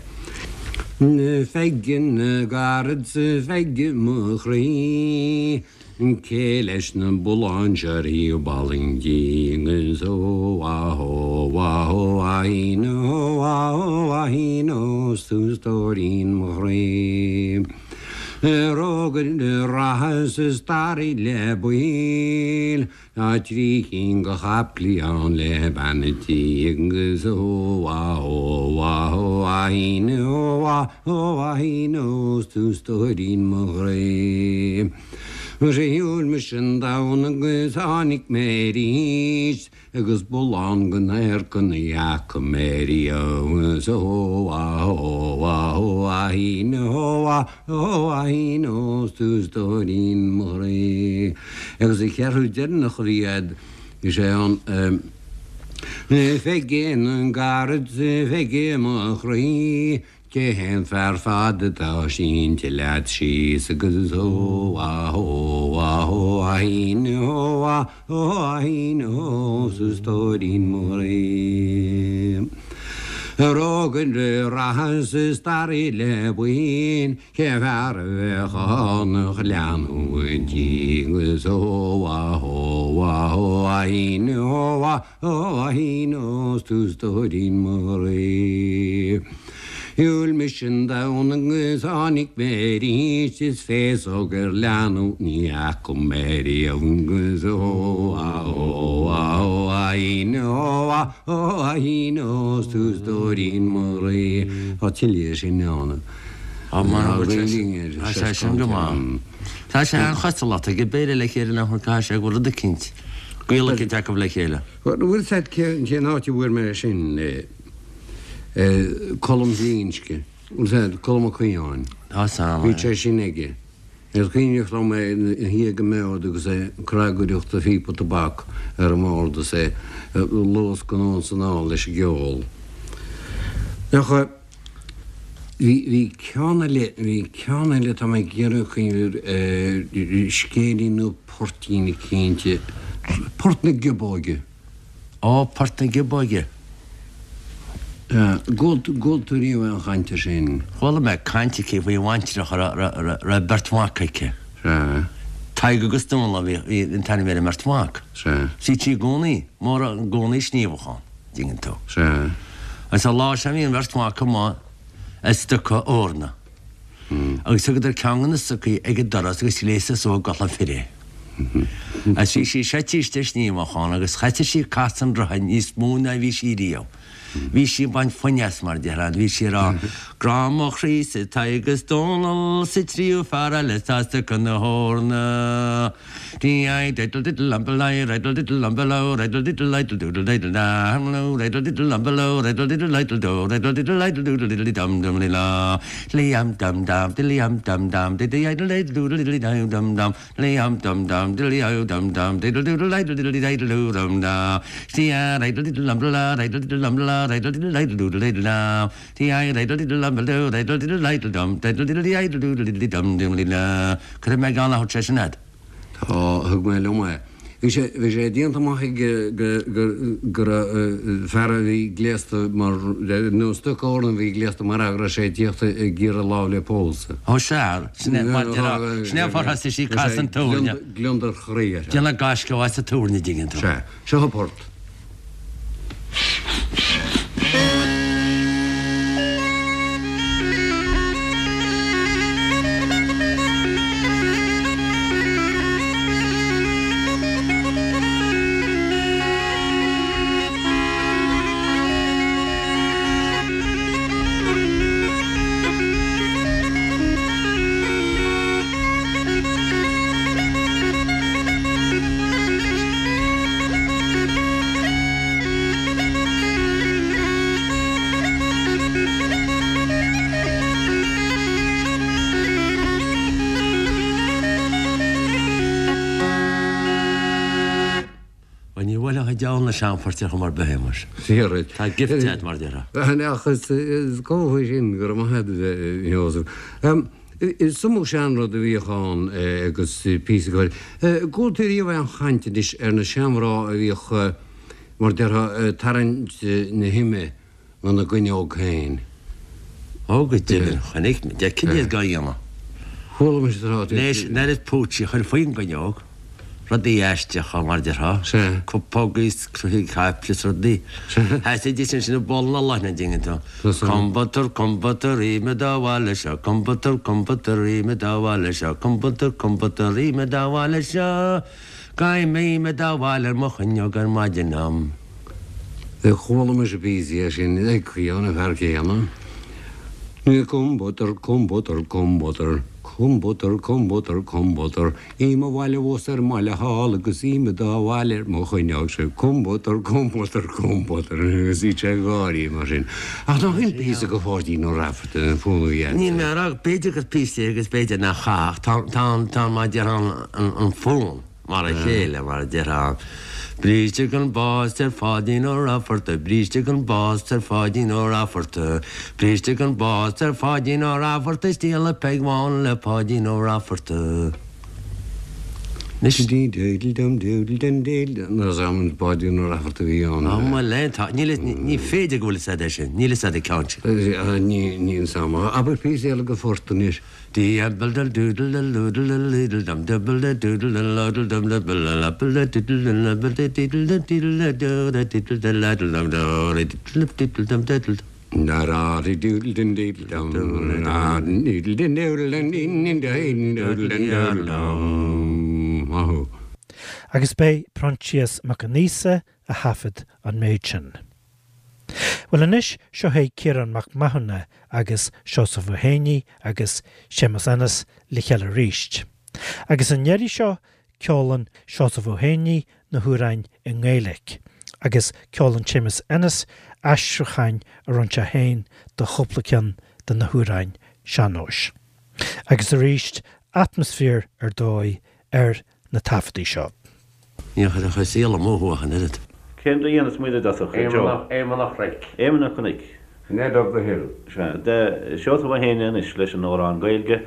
Pheige na gcarad 's a Pheige mo chroí, Cé leis na bulláin seo ar thaobh Ballingeean is ó ah ó ah ó ahín ó ah ó ahín ó 's tú stóirín mo chroí. Rógaire reatha 's a staraí le baill Tá trí chinn de chaiplí ann le bean a' tí agus ó ah ó ah ó ahín ó ah ó ahín ó 's tú stóirín mo chroí. Shiúil mise an domhan agus tháinig mé arís Agus bullán den adharca ní fhaca mé riamh 's ó ah ó ah ó ahín ó ah ó ahín ó 's tú stóirín mo chroí. Agus an cheathrú deireanach a bhí a'd is é an Pheige na gcarad 's a Pheige mo chroí Cé hé an fear fada atá sínte leat síos agus ó ah ó ah ó ahín ó ah ó ahín ó 's a stóirín mo chroí. Rógaire reatha sa staraí le buíon cé fear a bheadh ann a leanúint í agus ó a ó a ó a hín ó a ó a hín ó 's tú stóirín mo chroí. Shiúil mise an domhan agus tháinig mé arís is féasóg ar leanbh ní fhaca mé riamh agus ó a ó a ó a hín ó a ó a hín ó 's tú stóirín mo chroí. Tá tuilleadh sin ann. Tá Tá sé sin go maith. Tá sé an-chosúil ag Béarla le chéile nach bhfuil caithfidh sé go bhfuil rud eicínt, gaol eicínt acu le chéile. Bhfuil 's a'd cén áit a bhfuair mé sin? Colm Glinsce. Bhfuil 's a'd, Colm Ó Caodháin. Tá 's a'm, Bhí sé sin aige. Is cuimhneach liom é ina shuí ag an mbord agus é ag cnagaireacht a phíopa tobac ar an mbord is é ag luascadh anonn 's anall leis an gceol. Ach bhí, bhí ceann eile, bhí ceann eile tá mé ag iarraidh cuimhneamh air, scéilín nó poirtín eicínt, Port na Giobóige. Ó, Port na Giobóige. Gcuala tú riamh aon chaint air sin? Chuala mé caint aici faoi bhaintreach a raibh beirt mhac aici. Sea. Tadhg agus Dónal a bhí an t-ainm ar an mbeirt mhac. Sea. Bhí sí i gcónaí, mór i gcónaí sníomhach ann, dtuigeann tú. Sea. Agus an lá seo bhí an bheirt mhac amuigh ag stoca eorna. Agus thugadar ceann de na stocaí ag an doras agus ghléasadar suas i gculaith fir é. Agus bhí sí suite istigh sníomhach ann agus thosaigh sí ag casadh an rotha níos mó ná bhí sí riamh. Bhí sí ag baint foinn as mar déarfá, bhí sí ag rá, Grá mo chroí-sa Tadhg is Dónal sa tríú fear eile atá ag stoca na heorna. Dee diddle diddle umble lie riddle diddle umble o riddle diddle lidle doodle diddle da hum lo riddle diddle umble o riddle diddle lidle do riddle diddle lidle doodle diddle dum dum li la li um dum dum dilly um dum dum diddy idle diddle doodle diddle dum dum dum li um dum dum dilly o dum dum diddle doodle idle diddle diddle doo dum da dee riddle diddle umble la riddle diddle umble la riddle diddle idle doodle diddle da dee riddle diddle umble do riddle diddle idle dum diddle diddle idle doodle diddle dum dum li la Cuirfidh mé geall a thabhairt sé sin a'd. Tá, thug mé liom é. Bhí sé, bhí sé déanta amach aige go, go, go raibh fear a bhí gléasta mar, nó stoca eorna a bhí gléasta mar fhear go raibh sé ag tíocht ag iarraidh lámh le pósadh. Ó sea, sin é mar déarfá, sin é an fáth ar thosaigh sí ag casadh an túirne. Gliondar chroí uirthi. Déanamh gaisce as an túirne, dtuigeann tú. Sea, seo an port. Bhuel, ní bhuailfeadh an diabhal na seanphoirt ar chuma ar bith é, muis. Fíor duit. Tá gift agat, mar a déarfá. Ach is cóir sin, go raibh maith agat, a Sheosaimh. Is iomaí seanrud a bhíodh ann agus píosa ceoil. Gcuala tú riamh aon chaint anois ar na seanmhná a bhíodh, mar déarfá, ag tarraingt na hime gona gcuinneog féin? Ó, go deimhin, chonaic mé, d'fheicfinn iad dhá dhéanamh. Chuala mise tráth. Leis an oiread púitsí a chur faoin gcuinneog. Rudaí aisteacha, mar a déarfá. Sea. Cupógaí is croithí caiple is rudaí. Sea. Sheasaidís ansin i bpoll na leoithne, an dtuigeann tú. Tá san. Combutar, combutar, ime do bhaile seo, combutar, combutar, ime do bhaile seo, combutar, combutar, ime do bhaile seo, Gabhaim ime do bhaile ar mo chuinneog ar maidin am. Chuala mise píosa é sin ag caoineadh an fear céanna. Combutar, combutar, combutar, combutar, combutar, combutar. I mo bhaile abhus ar an mbaile thall agus ime dá bhaile ar mo chuinneog sé combutar, combutar, combutar agus bhí sé ag gáirí mar sin. Ach nach in píosa de Pháidín Ó Raifeartaigh an fonn a bhí agat? Níl mé a rá, b'fhéidir gur píosa é agus b'fhéidir nach ea ach tá, tá an, tá mar a déarfá an, an fonn mar a chéile mar a déarfá. Bríste gan bás ar Pháidín Ó Raifeartaigh, bríste gan bás ar Pháidín Ó Raifeartaigh, bríste gan bás ar Pháidín Ó Raifeartaigh is díoladh Peig Bhán le Páidín Ó Raifeartaigh. Anois. Dee doodle dum doodle dum doodle Níl 'fhios a'm an Páidín Ó Raifeartaigh a bhí ann. Á bhuel eh tá níl ní féidir go bhfuil 'fhios a'd é sin níl 'fhios a'd an ceann sin. Ní níl 'fhios a'm. Abair píosa eile de phort anois. Dee apple dum doodle dum doodle dum doodle dum dubble da doodle dum doodle dum dubble da apple da doodle dum apple da doodle dum doodle da do da doodle da ladle dum do da doodle dum doodle dum doodle dum. Agus b'é Proinsias Mac Con Aosa a thaifead an méid sin. Bhuel anois, seo é Ciarán Mac Mathúna agus Seosamh Ó Héanaí agus Séamus Ennis le chéile arís. Agus an iarraidh seo, ceolann Seosamh Ó Héanaí na hamhráin i nGaeilic agus ceolann Séamus Ennis aistriúcháin a rinne sé féin do chúpla ceann de na hamhráin sean-nóis. Agus arís, atmaisféar ar dóigh ar na taifeadtaí seo. Níor chuir a chuid saol amú thú ach an oiread. Cén a dhéanfas muid i dtosach, a Joe? Éamonn a' Chnoic. Éamonn a' Chnoic. Ned of the Hill. Sea. Seosamh Ó hÉanaí anois leis an amhrán Gaeilge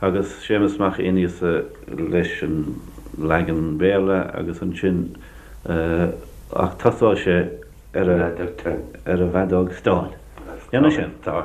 agus Séamus Mac Aonghusa leis an leagan Béarla agus ansin ach tosóidh sé ar a ar a bhfeadóg stáin. Déanfaidh sin. Tá.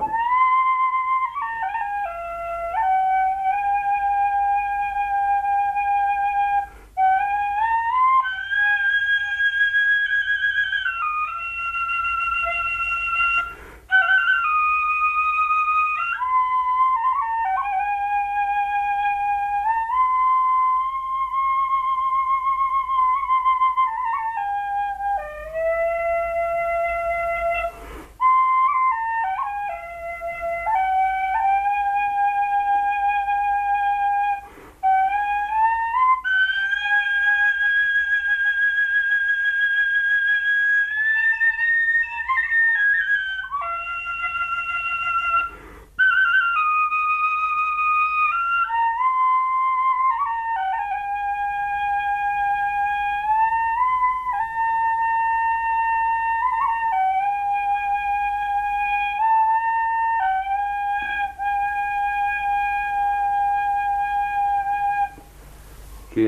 Cé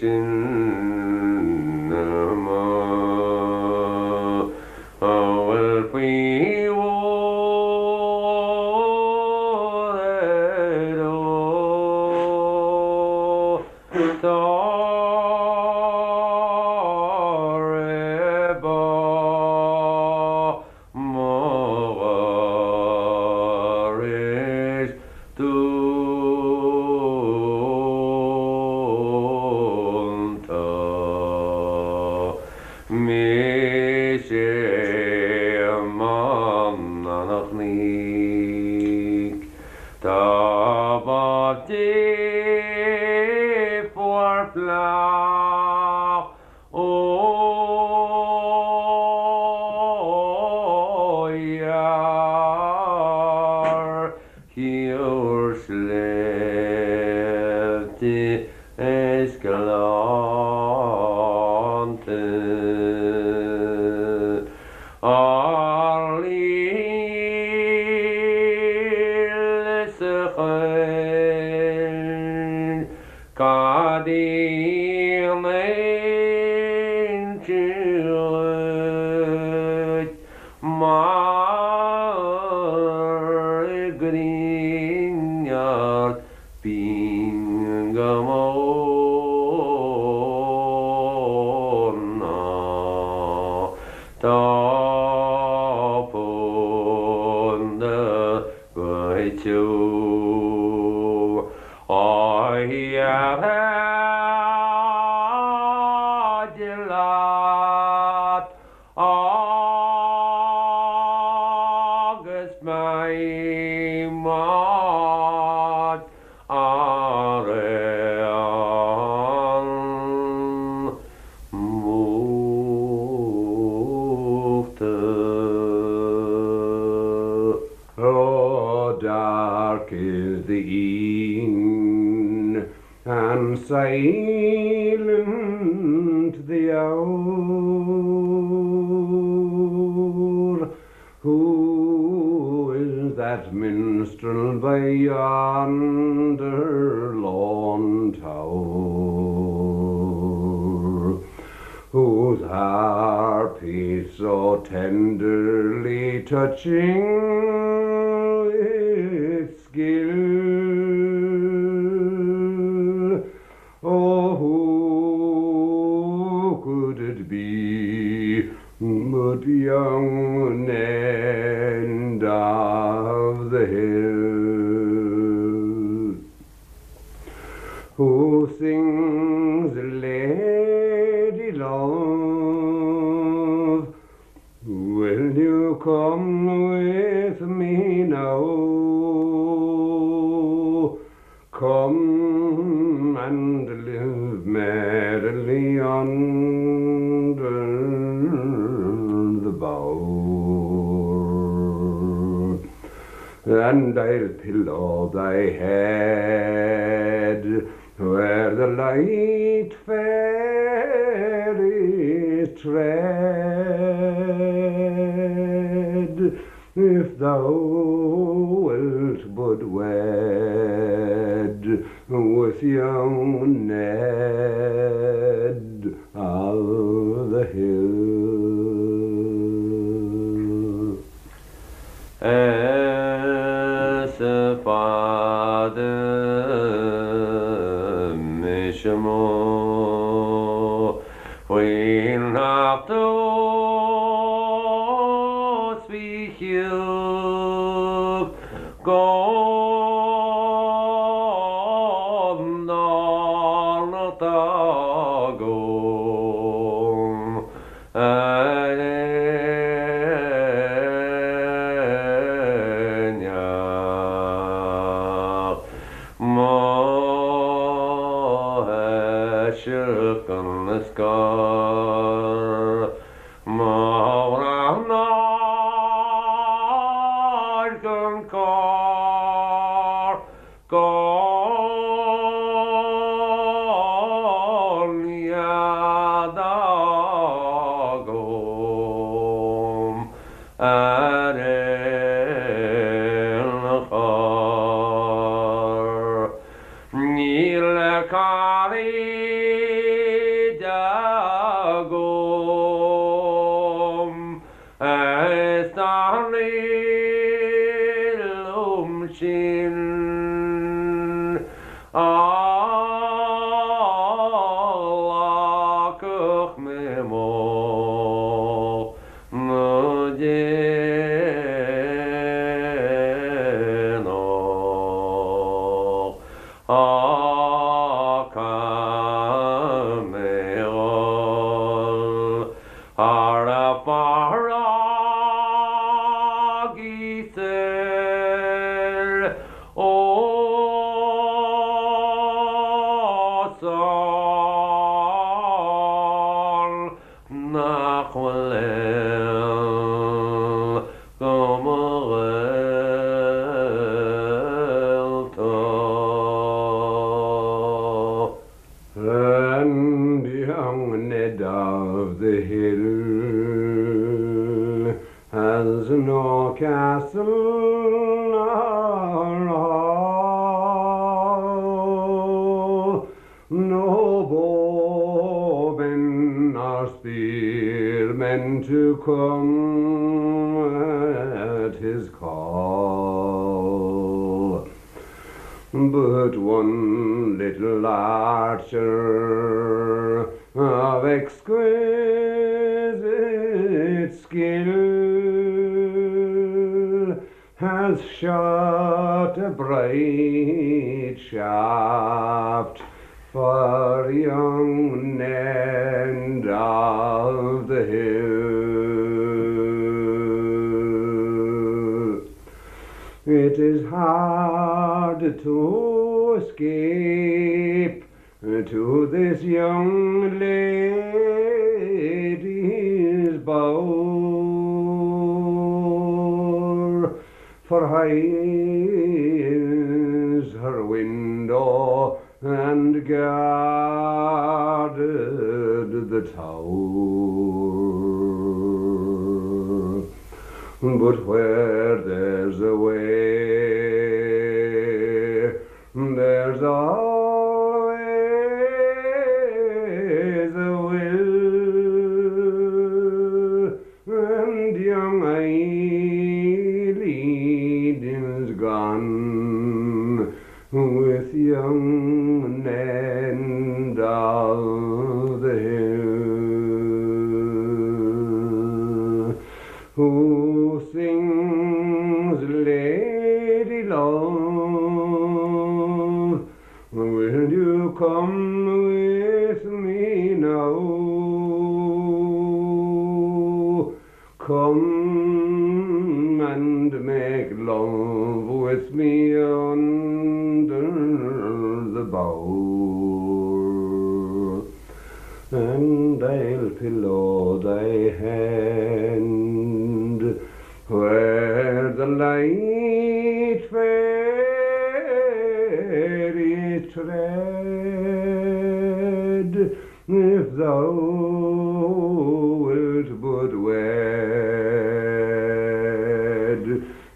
sin amuigh a bhfuil faoi mhór ar ó tá re bá Mo gharis dúnta. Mise Éamonn an Chnoic. Dá b'ámh Dé fuar fleách Ó dhear cíor sléibhte is gleannta Ár líl sa choill Cad í an inse dhuit mar ghrian ard binn go mór ná tá púnda Goitse oíche leat agus beidh muid araon múchta. Oh, dark is the e'en and silent the hour, Who is that minstrel? minstrel by yonder lone tower, whose harp he so tenderly touching with skill. Oh, who could it be but young Ned of the Hill, who sings Lady Love, will you come with me now? Come and live merrily under the bower, and I'll pillow thy head where the light fairies tread, if thou wilt but wed with young Ned of the Hill. Is fada mise amuigh faoin uachtar is faoi chiúch go n-arna agam ar aon mo thoiseach gan scor mo ghrá gan cor go nead agam ar aon chor. Níl cairde agam is dá liom sin a ghlacfadh mé mo dhéanach Á caithfidh mé dhul thar an bhfarraige soir ós ann nach bhfuil éan go mo ghaolta. And young Ned of the Hill has no castle nor hall, no bowmen nor spearmen to come at his call. But one little archer of exquisite skill has shot a bright shaft for young Ned of the Hill. It is hard to escape to this young lady's bower, for high is her window and guarded the tower. But where there's a way There's always a will, and young Eileen is gone with young Ned of the Hill, who sings Lady Love, will you come with me now? Come and make love with me under the bower, and I'll pillow thy hand where the light fairies tread, if thou wilt but wed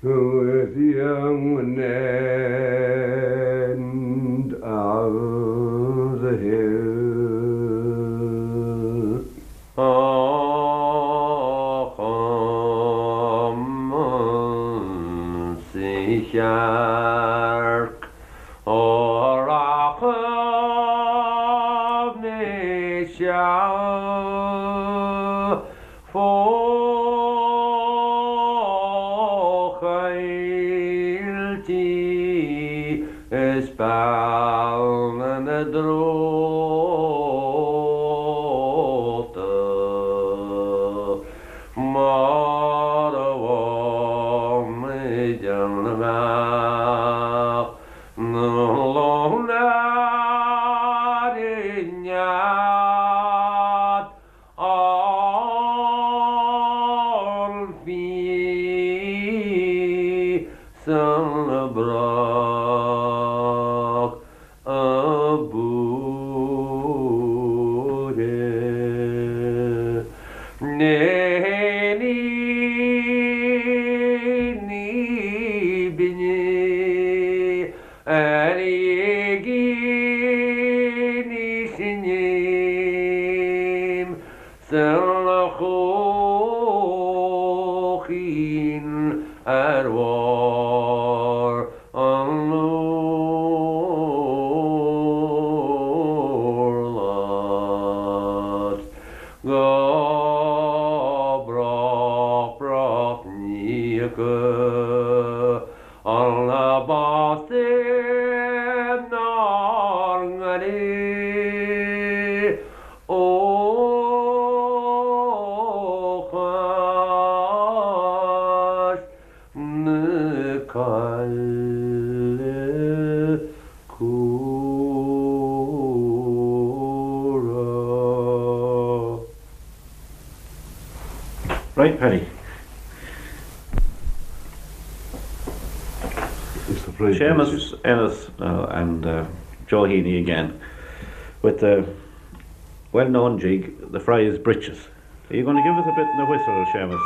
with young Ned of the Hill. Á chum sa chearc ó rachaidh mé seal fó choilltí is beanna na dtreabhta mar a bheadh muid an mbeadh na lon ar nead an fhí san brach a búire. Ní ní binne ar éigin í sinim san chóchín ar bharr an urláir go brách brách ní an bás nár ngaire ó chois na Coille Cumhra. Right, Paddy. Seamus Ennis and Joe Heaney again with the well-known jig, the Friar's Breeches. Are you going to give us a bit in the whistle, Seamus?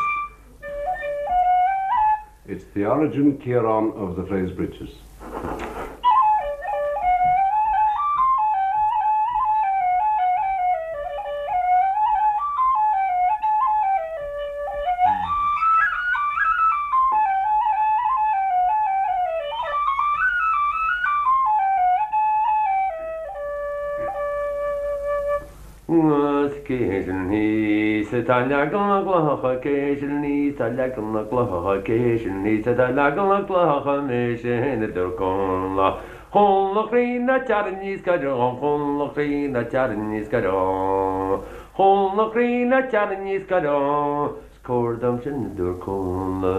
It's the origin, Ciarán, of the Friar's Breeches. Cé sin thíos atá ag leagan na gclocha, cé sin thíos atá ag leagan na gclocha, cé sin thíos atá ag leagan na gclocha, mise féin a dúirt Connla. Connla chroí ná tear aníos go deo, Connla chroí ná tear aníos go deo, Connla chroí ná tear aníos go deo, 's cóir dom sin a dúirt Connla.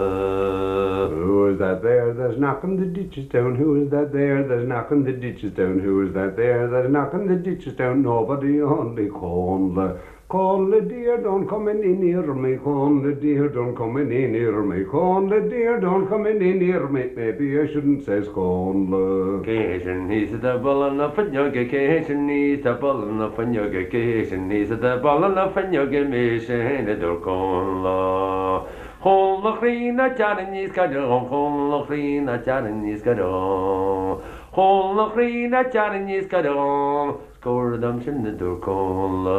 Who is that there that's knocking the ditches down, who is that there that's knocking the ditches down, who is that there that's knocking the ditches down, nobody only Connla. Connla dear, don't come any nearer me, Connla dear, don't come any nearer me, Connla dear, don't come any nearer me, maybe I shouldn't, says Connla. Cé sin thíos atá ag bualadh na fuinneoige, cé sin thíos atá ag bualadh na fuinneoige, cé sin thíos atá ag bualadh na fuinneoige, mise féin a dúirt Connla. Connla chroí ná tear aníos go deo, Connla chroí ná tear aníos go deo. Chomhla a chroí ná tearrainn níos gaire dhom, 's comhair dom sin a dúirt Connla.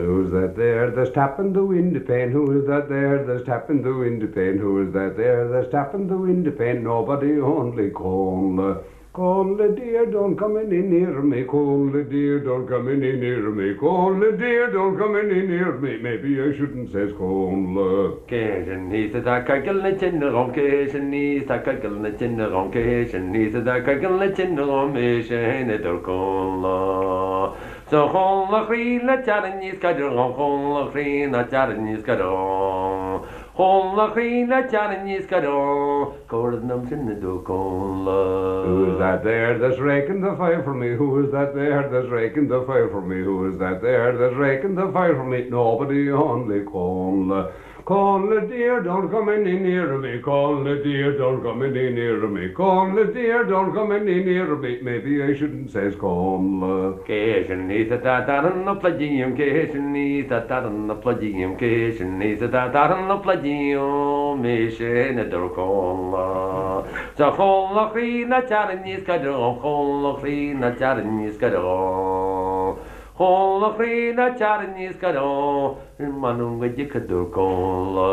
Who's that there that's tapping the window pane? Who is that there that's tapping the window pane? Who is that there that's tapping the window pane? Nobody only Connla. Connla dear, don't come any nearer me, Connla dear, don't come any nearer me, Connla dear, don't come any nearer me, maybe I shouldn't says Connla. Cé sin thíos atá ag coigeal na tine dhom, cé sin thíos atá ag coigeal na tine dhom, cé sin thíos atá ag coigeal na tine dhom, mise féin a dúirt Connla. 'S a Chonnla a chroí ná tear níos gaire dhom, Chonnla a chroí ná tear níos gaire dhom, Chonnla a chroí ná tear níos gaire dhom, comhair dom sin a dúirt Connla. Who is that there that's raking the fire for me, who is that there that's raking the fire for me, who is that there that's raking the fire for me, nobody only Connla. Connla dear, don't come any nearer me, Connla dear, don't come any nearer me, Connla dear, don't come any nearer me, maybe I shouldn't says Connla. Cé sin thíos atá ag tarraingt na pluide dhíom, cé sin thíos atá ag tarraingt na pluide dhíom, cé sin thíos atá ag tarraingt na pluide dhíom, mise féin a dúirt Connla. 'S a Chonnla a chroí ná tear níos gaire dhom, Chonnla a chroí ná tear níos gaire dhom, Chonnla a chroí ná tear níos gaire dhom, M'anam go dtiocfaidh a dúirt Connla.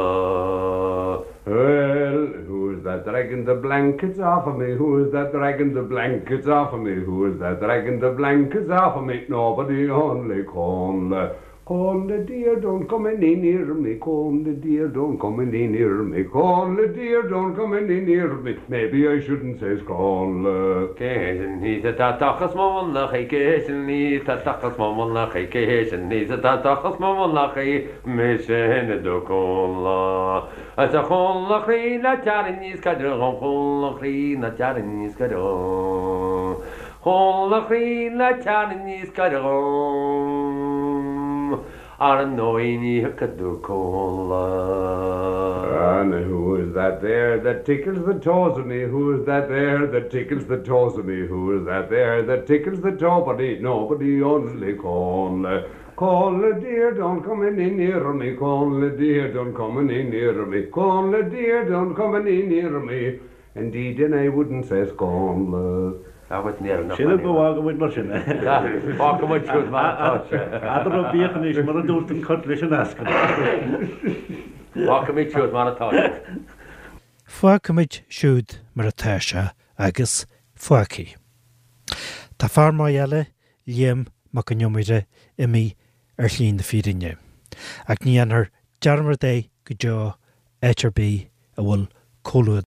Well, who is that dragging the blankets off of me, who is that dragging the blankets off of me, who is that dragging the blankets off of me, nobody only Connla. Connla dear, don't come any nearer me, Connla dear, don't come any nearer me, Connla dear, don't come any nearer me, maybe I shouldn't says Connla. Cé sin thíos atá ag tochas mo mhullaigh, cé sin thíos atá ag tochas mo mhullaigh, cé sin thíos atá ag tochas mo mhullaigh, mise féin a dúirt Connla. 'S a Chonnla a chroí ná tear níos gaire dhom, Chonnla a chroí ná tear níos gaire dhom, Chonnla a chroí ná tear níos gaire dhom, Ar ndóigh ní thiocfaidh a dúirt Connla. And who is that there that tickles the toes of me, who is that there that tickles the toes of me, who is that there that tickles the toe-body, nobody only Connla. Connla dear, don't come any nearer me, Connla dear, don't come any nearer me, Connla dear, don't come any nearer me, indeed and I wouldn't says Connla. Sílim go bhfágfaidh muid mar sin é. Fágfaidh muid siúd mar atá sé. Eadarthub bíodh anois mar a dúirt an cat leis an eascann. Fágfaimid siúd mar atá sé. Fágfaimid siúd mar atá sé agus fágfaidh. Tá fear maith eile, Liam Mac Con Iomaire, imithe ar shlí na fírinne. Ach ní dhéanfar dearmad é go deo áit ar bith a bhfuil comhluadar.